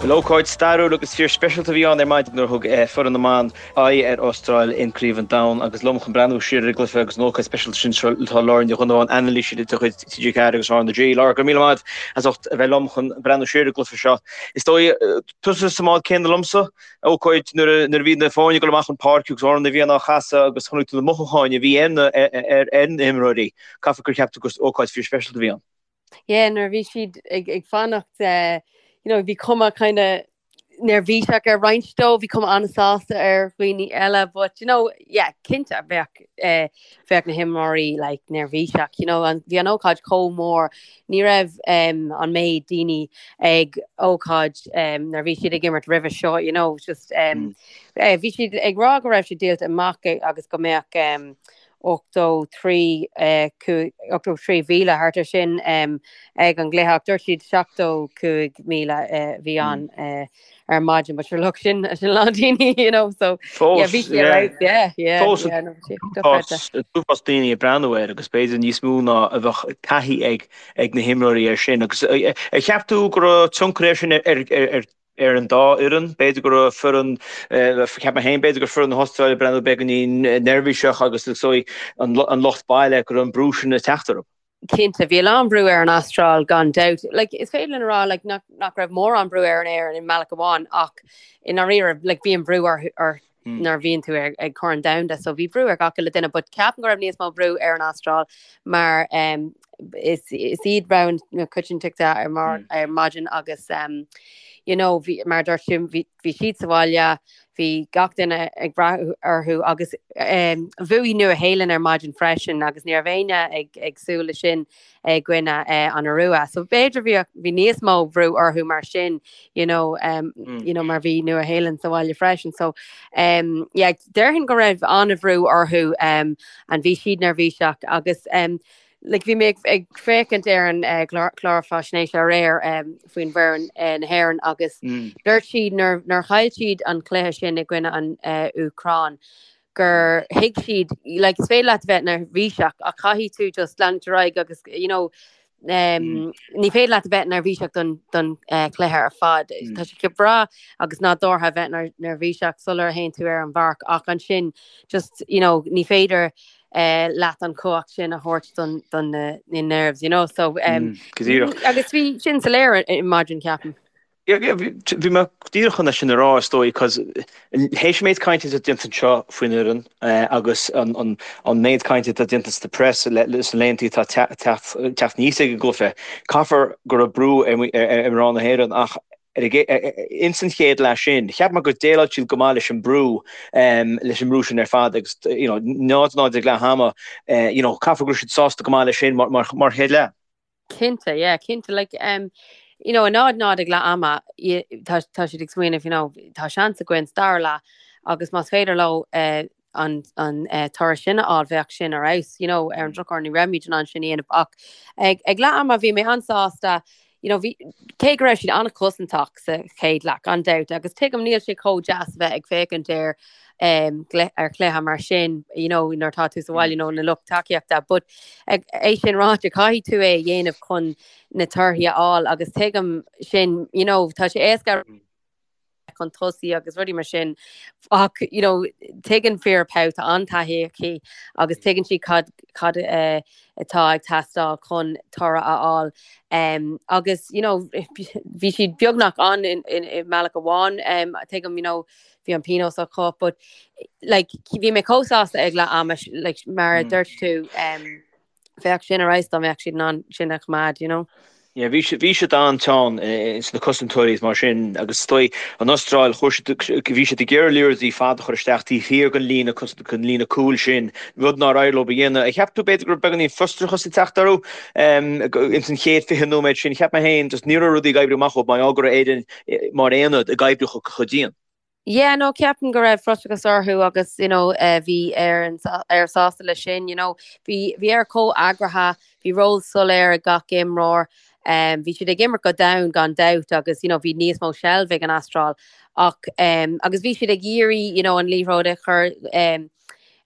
Bhuel, ócáid stairiúil agus fíor speisialta a bhí ann ar maidin nuair a thug foireann na mban aghaidh ar Astráil in Craobh an Domhain agus liom chun breathnú siar ar an gcluiche agus an ócáid speisialta sin seo tá Laura Ní Dhonnabháin, anailísí de chuid TG4 agus RnaG. Laura, go raibh míle maith as ucht a bheith liom chun breathnú siar ar an gcluiche seo. Is dóigh, tusa sa mbád céanna liomsa, ócáid nuair a bhí na foirne ag dul amach chun páirce agus Amhrán na bhFiann á chasadh agus chonaic tú na mothúcháin a bhí ar na himreoirí. Caithfidh gur cheap tú gur ócáid fíor speisialta a bhí ann. Yeah, nuair a bhí siad ag, ag fanacht, eh, you know, bhí cuma kind of neirbhíseach ar roinnt dóibh, bhí cuma an-sásta ar dhaoine eile, but you know, yeah, cinnte bheadh, eh, bheadh na himreoirí like, neirbhíseach, you know, an, bhí an ócáid chomh mór, ní raibh um, an méid daoine ag ócáid um, nuair bhí siad ag imirt roimhe seo, you know, just um, mm. eh, bhí siad ag rá go raibh sé díolta amach agus go mbeadh um, 83, 83,000 thart ar sin ag an gcluiche ach dúirt siad 75,000 a bhí ann ar maidin but sure look sin sin a lán daoine you know so yeah bhí sé right yeah yeah Fós yeah no bhí sé dochreidte. Uafás daoine ag breathnú air agus b'fhéidir níos mó ná a bheadh taithí ag ag na himreoirí air sin agus ar cheap tú go raibh tionchar air sin ar ar ar an dá fhoireann. B'fhéidir go raibh foireann, cheap mé féin, b'fhéidir go raibh foireann na hAstráile ag breathnú beagáinín neirbhíseach agus is dóigh an lucht baile go raibh an brú sin ag teacht orthu. Cinnte, bhí a lán brú ar an Astráil gan dabht. Like, is féidir linn a rá like, nach, nach raibh mórán brú ar an Éirinn i mbealach amháin ach i ndáiríre like, bíonn brú orthu, ort nuair a bhíonn tú ag, ag Corn Domhanda so bhí brú ar gach uile duine but ceapaim go raibh níos mó brú ar an Astráil mar um, is, is iad rogha na coitiantachta ar, mar, ar maidin agus um, you know, bhí, mar dúirt tú bhí, bhí siad sa bhaile, bhí gach duine ag brath orthu agus um, bhuaigh Nua Shéalainn ar maidin freisin agus ní raibh éinne ag, ag súil le sin i gcoinne uh, an Iorua. So b'fhéidir bhí, bhí níos mó brú orthu mar sin, you know, um, mm. you know, mar bhí Nua Shéalainn sa bhaile freisin. So um, yeah, déarfainn go raibh an-bhrú orthu um, and bhí siad neirbhíseach agus um, like, bhí mé ag, ag féachaint ar an uh, clár, clár faisnéise aréir um, faoin bhfoireann uh, na hÉireann agus mm. dúirt siad nuair, nuair chaill siad an cluiche sin i gcoinne an uh, Úcráin gur thuig siad, like, is féidir leat a bheith neirbhíseach ach caithfidh tú just leanúint ar aghaidh agus, you know, um, ní féidir leat a bheith neirbhíseach don, don uh, chluiche ar fad. Mm. Tá sé breá agus nádúrtha a bheith neirbhíseach sular théann tú ar an bpáirc ach ansin just, you know, ní féidir uh, leat an chumhacht sin a thabhairt don, don na, na nerves, you know, so um, mm, agus bhí sin soiléir ar maidin ceapaim. Bhí mé díreach chun é sin a rá, is dóigh, cos théis an méid cainte atá déanta anseo faoin fhoireann agus an méid cainte atá déanta sna press sna laethanta atá teacht aníos ag an gcluiche, caithfear go raibh brú ar mhná na hÉireann ach ins an chéad leath sin, cheap mé gur dhéileáil siad go maith leis an brú, leis an mbrú sin ar fad agus, you know, 0-0 ag leath ama, you know, caithfear go raibh siad sásta go maith leis sin mar chéad leath. Cinnte, yeah, cinnte, like, um, you know, 0 0 ag leath ama, tá, tá siad ag smaoineamh, you know, tá seans againn sa dara leath agus más féidir leo uh, an, an uh, toradh sin a fháil bheadh sin ar fheabhas, you know, ar an drochuair ní raibh muid in ann sin a dhéanamh ach ag, ag leath ama bhí mé an-sásta, you know, bhí, cé go raibh siad an-chosantach sa chéad leath, gan dabht, agus tuigim níl sé chomh deas a bheith ag féachaint ar um, ar chluiche mar sin, you know, nuair atá tú sa bhaile, you know, na lucht tacaíochta, but ag é sin ráite caithfidh tú é a dhéanamh chun na torthaí a fháil agus tuigim sin, you know, tá sé éasca chun tosaigh agus rudaí mar sin ach you know, tuigeann Vera Pauw tá an-taithí aici agus tuigeann sí cad, cad uh, atá ag teastáil chun toradh a fháil. Um, agus you know, bhí siad beagnach ann in, in, i mbealach amháin um, tuigim you know, bhí an pionós acu but like bhí mé chomh sásta ag leath ama like mar a mm. dúirt tú um, bheadh sin ar fheabhas dá mbeadh siad in ann sin a choimeád, you know. Yeah, bhí siad bhí siad an-teann sna cosantóirí is mar sin agus is dóigh an Astráil chuir siad bhí siad ag iarraidh liathróidí fada a chur isteach taobh thiar den líne den líne cúil sin, rud nár éirigh leo a dhéanamh. Ar cheap tú b'fhéidir go raibh beagáinín frustrachas ag teacht orthu ins an chéad 20 nóiméad sin? Cheap mé féin just ní raibh rudaí ag oibriú amach dóibh mar gheall go raibh Éirinn mar aonad ag oibriú chomh dian. Yeah, no, ceapaim go raibh frustrachas orthu agus, you know, eh, bhí Éire Éire sásta leis sin, you know, bhí bhí Éire chomh eagraithe, bhí ról soiléir ag gach imreoir, um, bhí siad ag imirt go domhain gan dabht agus, you know, bhí níos mó seilbh ag an Astráil ach um, agus bhí siad ag iarraidh, you know, an liathróid a chur um,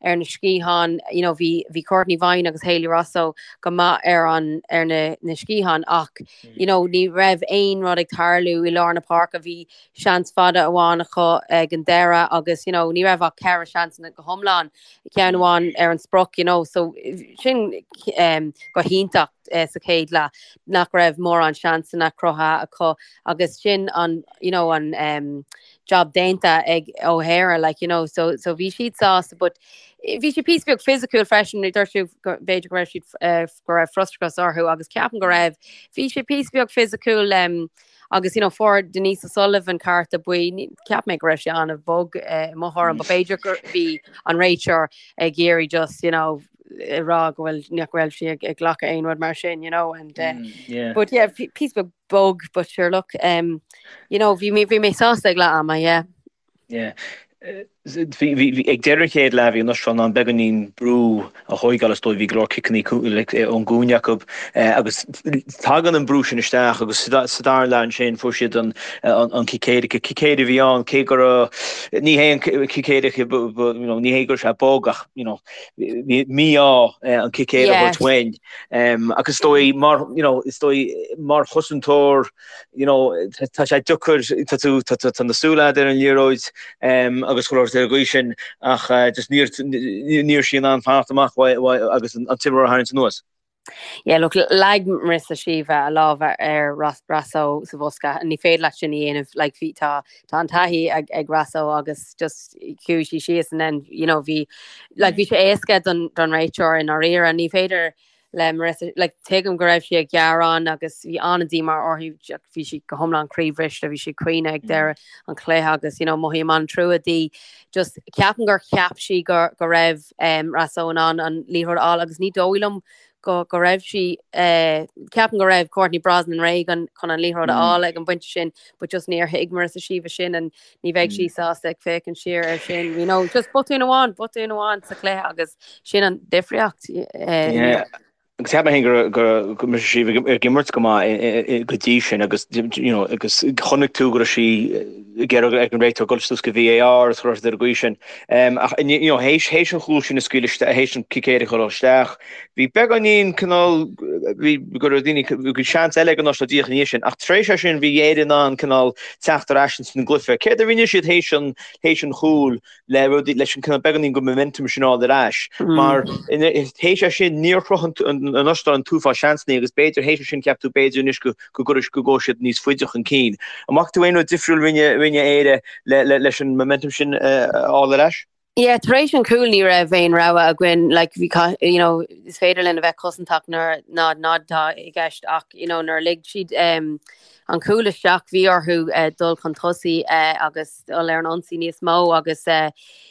ar na sciatháin, you know, bhí bhí Cortnee Vine agus Hayley Raso go maith ar an ar na na sciatháin ach you know, ní raibh aon rud ag tarlú i lár na páirce, bhí seans fada amháin acu ag an deireadh agus you know, ní raibh ach ceithre seansanna go hiomlán, ceann amháin ar an sprioc, you know, so sin um, go hiontach uh, sa chéad leath nach raibh mórán seansanna cruthaithe acu agus sin an you know, an um, job déanta ag O'Hara like you know so so bhí siad sásta but bhí sé píosa beag fisiciúil freisin dúirt tú b'fhéidir go raibh siad eh, go raibh frustrachas orthu agus ceapaim go raibh bhí sé píosa beag fisiciúil um, agus you know fuair Denise O'Sullivan cárta buí cheap mé go raibh sé an-bhog eh, i mo thuairim but b'fhéidir gur bhí an réiteoir ag iarraidh just you know ag rá go bhfuil nach raibh sí ag glacadh aon rud mar sin you know and uh, mm, yeah. but yeah píosa beag bog but sure look um, you know bhí mé bhí mé sásta ag leath ama yeah. Yeah. Bhí ag deireadh an chéad leath bhí an Astráil in ann beagáinín brú a thóigeáil is dóigh bhí go leor ciceanna ón gcúinne acu agus tagann an brú sin isteach agus sa dara leath ansin fuair siad an an cic éirice. Cic éirice a bhí ann cé go raibh ní hé an cic éirice ní hé go raibh sé bog ach you know bhí mí-ádh an cic éirice a thabhairt uainn. Agus is dóigh mar you know is dóigh mar chosantóir you know tá sé deacair tá tú tá tá na súile agat ar an liathróid agus chuile shórt ar an gcaoi sin ach just níor ní raibh sí in ann fanacht amach agus an t-imreoir a tharraingt anuas. Yeah, look, leag Marissa Sheva a lámh ar Raso sa bhosca. Ní féidir leat sin a dhéanamh, like, bhí tá tá an taithí ag ag Raso agus just chuaigh sí síos and then, you know, bhí like, bhí sé éasca don don réiteoir i ndáiríre. Ní féidir le Marissa, like, tuigim go raibh sí ag gearán agus bhí an-díomá uirthi, bhí sí go hiomlán croíbhriste, bhí sí ag caoineadh ag deireadh an chluiche agus, you know, mothaím an-trua di. Just ceapaim gur cheap sí go go raibh um, Raso in ann an liathróid a fháil agus ní dóigh liom go go raibh sí uh, ceapaim go raibh Courtney Brosnan réidh an, chun an liathróid a fháil ag an bpointe sin, but just níor thuig Marissa Sheva sin and ní bheidh sí sásta ag féachaint siar ar sin. You know, just botún amháin, botún amháin sa chluiche agus sin an difríocht. Uh, yeah. Agus cheap mé féin go raibh go raibh sí ag imirt go maith go dtí sin agus you know agus chonaic tú go raibh sí ag iarraidh ag an réiteoir dul suas go VAR agus chuile shórt ar an gcaoi sin. Ach you know théis théis an chúl sin a scaoileadh isteach théis an cic éirice a chur isteach bhí beagáinín cineál bhí go raibh daoine bhí seans eile ag an Astráil díreach ina dhiaidh sin ach tar éis é sin bhí Éire in ann cineál teacht ar ais ins an gcluiche. Céard a rinne siad théis an théis an chúil le rudaí leis an cineál beagáinín den momentum sin a fháil ar ais mar théis é sin níor chruthaigh an Astráil an t-uafás seansanna agus b'fhéidir théis é sin cheap tú b'fhéidir anois go go gcuirfidh go gabhfaidh siad níos faide chun cinn. An bhfaca tú aon rud difriúil rinne rinne Éire le le leis an momentum sin a fháil ar ais? Yeah, tar éis an chúil ní raibh aon rogha againn, like bhí you know, is féidir linn a bheith cosantach nuair 0-0 atá i gceist ach you know, nuair a lig siad um, an cúl isteach bhí orthu uh, dul chun tosaigh uh, agus dul ar an ionsaí níos mó agus uh,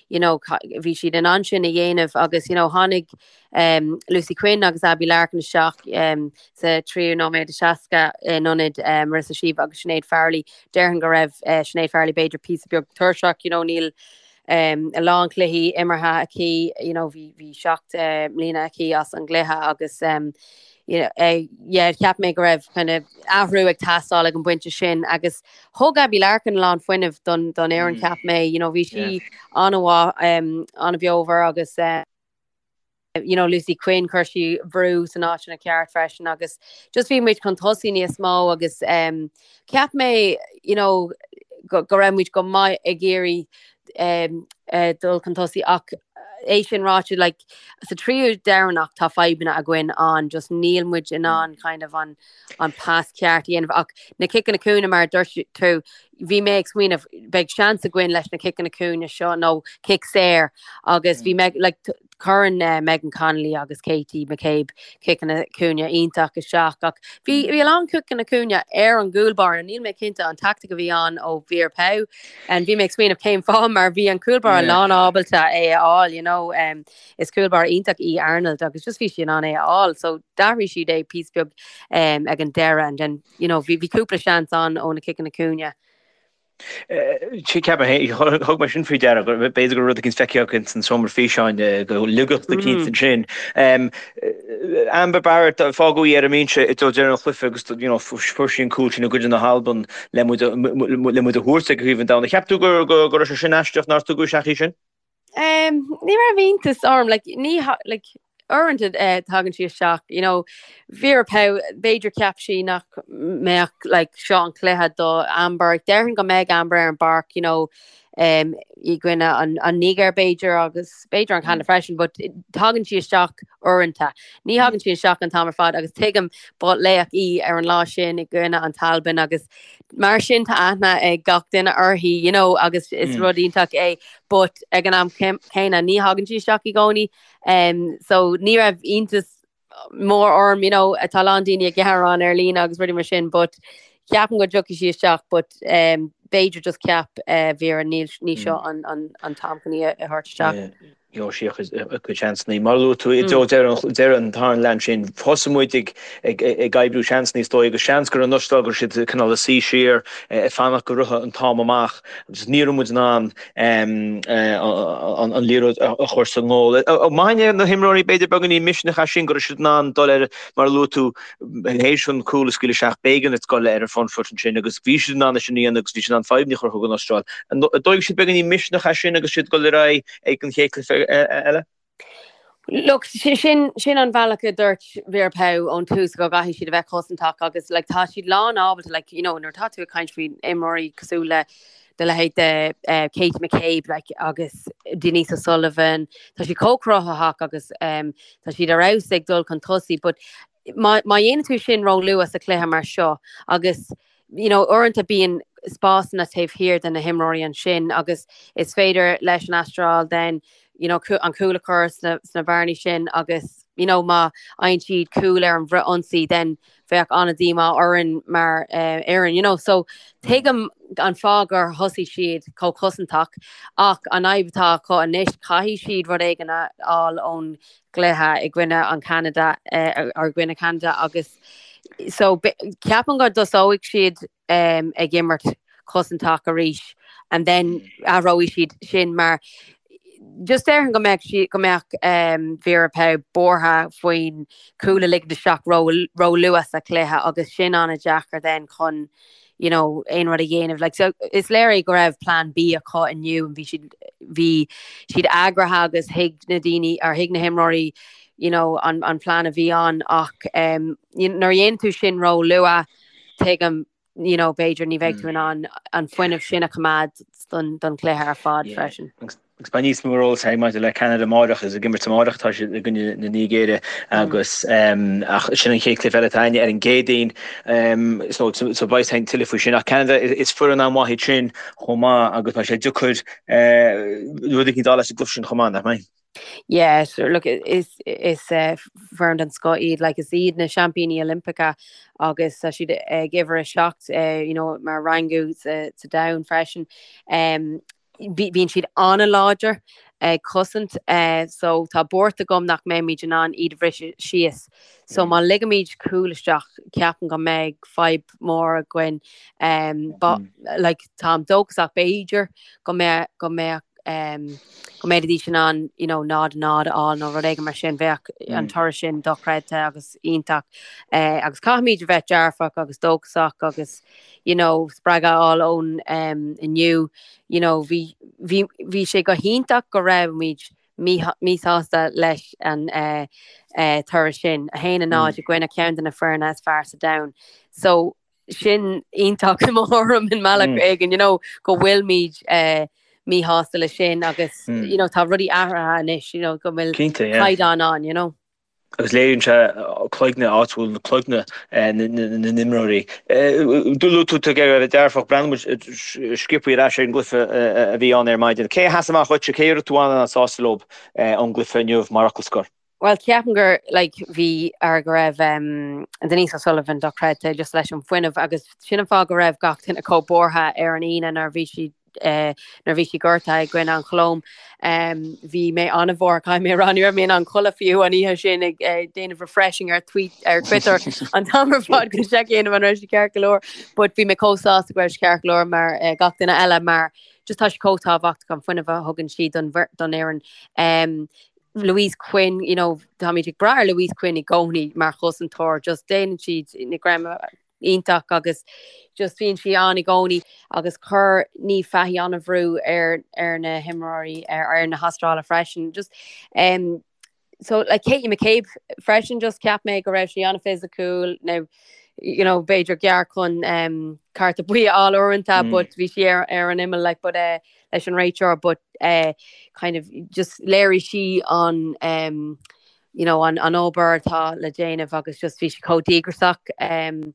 you know, bhí siad in ann sin a dhéanamh agus you know, tháinig um, Lucy Quinn agus Abbie Larkin isteach um, sa tríú nóiméad is 60 in ionad um, Marissa Sheva agus Sinéad Farrelly. Déarfainn go raibh uh, Sinéad Farrelly b'fhéidir píosa beag tuirseach, you know, níl um, a lán cluichí imeartha aici, you know, bhí, bhí 7 uh, mbliana aici as an gcluiche agus um, you know, uh, yeah, cheap mé go raibh kind of athrú ag teastáil ag an bpointe sin agus thug Abbie Larkin a lán fuinnimh don, don fhoireann mm. cheap mé, you know, bhí sí yeah. an-mhaith um, an-bheomhar agus uh, you know, Lucy Quinn chuir sí brú san áiteanna ceart freisin agus just bhí muid chun tosaigh níos mó agus um, cheap mé you know, go, go raibh muid go maith ag iarraidh um, uh, dul chun tosaigh ach é sin ráite like, sa tríú deireanach tá fadhbanna againn ann just níl muid in ann kind of an, an pas ceart a dhéanamh ach na ciceanna cúinne mar dúirt tú bhí mé ag smaoineamh beidh seans againn leis na ciceanna cúinne seo nó cic saor agus bhí mé like, cuireann uh, Megan Connolly agus Katie McCabe ciceanna cúinne iontach isteach ach bhí bhí a lán ciceanna cúinne ar an gcúlbáire níl mé cinnte an tactic a bhí ann ó Vera Pauw and bhí mé ag smaoineamh cén fáth mar bhí an cúlbáire yeah. lán ábalta é a fháil you know um, is cúlbáire iontach í Arnold agus just bhí sí in ann é a fháil so d'athraigh siad é píosa beag um, ag an deireadh and then you know, bhí cúpla seans ann ó na ciceanna cúinne. Ceapaim féin, thug mé sin faoi deara, b'fhéidir go raibh rud eicínt feicthe acu san seomra físeáin go laigeacht eicínt ansin. Amber Barrett, fágadh í ar an mbinse i dtreo deireadh an chluiche agus you know, fuair sí an cúl sin i gcoinne na hAlban le muid a thabhairt ag Craobh an Domhain. Cheap tú go raibh sé sin aisteach nár tugadh isteach í sin? Ní raibh iontas orm, like, ní, like, uaireanta eh, tagann sí isteach, you know, Vera Pauw, b'fhéidir cheap sí nach mbeadh, like, seo an cluiche do Amber, déarfainn go mbeidh Amber ar an bpáirc, you know, um, i gcoinne an, an Nigéir b'fhéidir agus b'fhéidir an Canada freisin, but tagann sí isteach uaireanta. Ní thagann sí isteach an t-am ar fad agus tuigim ba laoch í ar an lá sin i gcoinne an tAlbain agus mar sin tá aithne ag gach duine uirthi, you know, agus is rud iontach é, but ag an am céanna ní thagann sí isteach i gcónaí. Um, so ní raibh iontas mór orm, you know, tá a lán daoine ag gearán ar líne agus rudaí mar sin, but ceapaim go dtiocfaidh sí isteach, but um, b'fhéidir just cheap uh, Vera ní, ní seo an, an, an t-am chun í a thabhairt isteach. Yeah. Gheobhaidh sí a cuid seansanna. Mar a luaigh tú i dtreo deireadh an tarna leath ansin, thosaigh muid ag ag oibriú seansanna is dóigh agus seans gur an Astráil go raibh siad cineál ag suí siar ag fanacht go rithfeadh an t-am amach agus ní raibh muid in ann an liathróid a chur sa ngól. Maith na himreoirí b'fhéidir beagáinín misneach as sin go raibh siad in ann dul ar mar a luaigh tú théis an cúl a scaoileadh isteach b'éigean duit dul ar an front foot ansin agus bhí siad in ann é sin a dhéanamh agus bhí siad in ann fadhbanna a chruthú don Astráil. An dtógfaidh siad beagáinín misneach as sin agus siad ag dul ar aghaidh ag an chéad cluiche eile? Look, sin sin an bhealach a dúirt Vera Pauw ón tús go gcaithfidh siad a bheith cosantach agus like, tá siad lán ábalta like, you know, nuair atá tú ag caint faoi imreoirí cosúil le do leithéid de uh, Katie McCabe like, agus Denise O'Sullivan, tá siad chomh cruthaitheach agus um, tá siad ar fheabhas ag dul chun tosaigh, but má, má dhéanann tú sin ró-luath sa chluiche mar seo agus you know, uaireanta bíonn spásanna taobh thiar de na himreoirí ansin agus is féidir leis an Astráil then you know, an cúl a chur sna, sna bearnaí sin agus you know, má fhaigheann siad cúl ar an bhfrith-ionsaí then bheadh an-díomá orainn mar uh, fhoireann, you know, so tuigim an fáth gur thosaigh siad chomh cosantach ach an fhadhb atá acu anois caithfidh siad rud éigin a fháil ón gcluiche i gcoinne an Canada uh, ar gcoinne Canada agus So ceapaim go dtosóidh siad um, ag imirt cosantach arís and then athróidh siad sin mar just déarfainn go mbeadh sí go mbeadh um, Vera Pauw buartha faoin cúl a ligean isteach ró ró luath sa chluiche agus sin an-deacair then chun you know, aon rud a dhéanamh. Like, so, is léir é go raibh plan B acu inniu bhí siad bhí siad eagraithe agus thuig na daoine ar thuig na himreoirí you know, an, an plean a bhí ann ach um, nuair a dhéanann tú sin ró luath tuigim you know, b'fhéidir ní bheidh tú in ann an fuinneamh sin a choimeád don, don chluiche ar fad yeah. freisin. Agus beidh níos mó eolais againn maidir le Ceanada amárach is ag imirt amárach atá siad i gcoinne na Nigéire agus ach sin an chéad chluiche eile atá againne ar an gCéadaoin so so beidh a fhios againn tuilleadh faoi sin ach Ceanada is foireann an-mhaith iad sin chomh maith agus beidh sé deacair rud éicint a fháil as an gcluiche sin chomh maith, nach mbeidh? Yeah, sure. Look, is is uh, foireann den scoth iad, like is iad na seaimpíní Oilimpeacha agus tá siad ag uimhir a 7 uh, you know, mar rangú sa, sa domhan freisin. Um, bíonn siad an-láidir ag cosaint uh, so tá buairt agam nach mbeimid in ann iad a bhriseadh síos. So má ligimid cúl isteach ceapaim go mbeidh fadhb mór againn. Um, but, like, táim dóchasach b'fhéidir go mbeadh go mbeadh um, go mbeidís in ann you know, 0 0 a fháil nó rud éigin mar sin bheadh an toradh sin dochreidte agus iontach. Uh, agus caithfimid a bheith dearfach agus dóchasach agus you know, spreagadh a fháil ón um, inniu. You know, bhí, bhí, bhí sé go hiontach go raibhimid míshásta leis an uh, uh, toradh sin, 1 0 i gcoinne ceann de na foirne is fearr sa domhan. So sin iontach i mo thuairim i mbealach éigin, you know, go bhfuilimid uh, míshásta leis sin agus mm. you know, tá rudaí athraithe anois, you know, go bhfuil caighdeán ann, you know. Agus léiríonn sé cloigne áit bhfuil na cloigne na n-imreoirí. Luaigh tú tú ag iarraidh a bheith dearfach, breathnóidh muid sciobtha ar ais ar an gcluiche a bhí ann ar maidin. Cé a sheas amach dhuitse, cé a raibh tú an-sásta leo ón gcluiche inniu mar fhocal scoir? Bhuel, ceapaim gur like, bhí ar go raibh um, Denise O'Sullivan dochreidte just leis an fuinneamh agus sin an fáth go raibh gach duine chomh buartha ar an Aoine nuair bhí sí uh, nuair bhí sí gortaithe i gcoinne an Cholóim. Um, bhí mé an-bhuartha caithfidh mé a rá ní raibh mé in ann codladh fiú an oíche sin ag uh, déanamh refreshing ar tweet ar Twitter an t-am ar fad go seic dhéanamh an raibh sí ceart go leor, but bhí mé chomh sásta go raibh sí ceart go leor mar uh, gach duine eile mar just tá sí chomh tábhachtach an fuinneamh a thugann sí don don fhoireann. Um, Louise Quinn, you know, táimid ag brath ar Louise Quinn i gcónaí mar chosantóir, just déanann siad na greim. iontach agus just bíonn sí ann i gcónaí agus chuir Niamh Fahey an-bhrú ar ar na himreoirí ar ar na hAstráile freisin. Just um, so like Katie McCabe freisin just cheap mé go raibh sí an-fhisiciúil now you know b'fhéidir gearr chun um, cárta buí a fháil uaireanta mm. but bhí sí ar, ar an imeall like but uh, leis an réiteoir but uh, kind of just léirigh sí an um, you know an, an obair atá le déanamh agus just bhí sí chomh díograiseach um,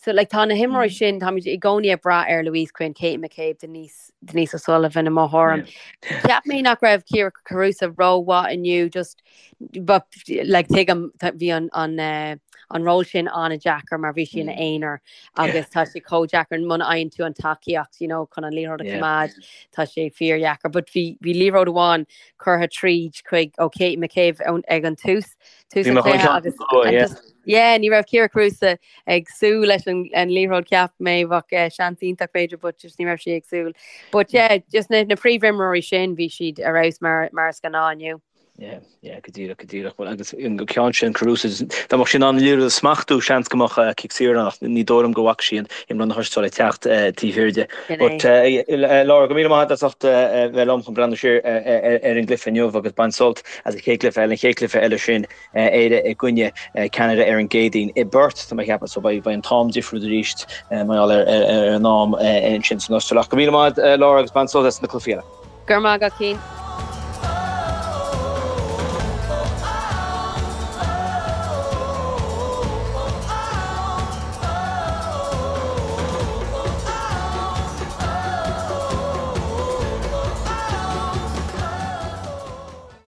So like tá na himreoirí mm. sin táimid i gcónaí ag brath ar Louise Quinn, Katie McCabe, Denise, Denise O'Sullivan i mo thuairim. Cheap mé nach raibh Kyra Carusa rómhaith inniu just but like tuigim bhí an an uh, an ról sin an-deacair mar bhí sí ina mm. aonar agus tá sé chomh deacair muna fhaigheann tú an tacaíocht you know, chun an liathróid a choimeád tá sé fíordheacair, but bhí bhí liathróid amháin curtha tríd chuig ó Katie McCabe ag an tús tús an chluiche agus just yeah ní raibh Kyra Carusa ag súil leis an an liathróid cheap mé bheadh eh, seans iontach b'fhéidir but just ní raibh sí ag súil. But yeah just na na príomhimreoirí sin bhí siad ar fheabhas mar mar is gnáth inniu. Yeah, yeah, go díreach, go díreach. Well, agus an ceann sin Carusa, dá mbeadh sí in ann an liathróid a smachtú seans go mbeadh eh, cic saor ann ach ní dóigh liom go bhfaca sí an imreoir na hAstráile ag teacht eh, taobh thiar di. Sin é. But eh, eh, Laura, go míle maith agat as ucht eh, bheith liom chun breathnú siar eh, eh, ar an gcluiche inniu agus bain sult as an chéad chluiche eile, an chéad chluiche eile sin Éire i gcoinne Ceanada ar an gCéadaoin i bPerth, tá mé ag ceapadh, so beidh an t-am difriúil arís mar gheall ar an am ansin san Astráil. Ach go míle maith Laura agus bain sult as na cluichí eile. Go raibh maith agat, Cian.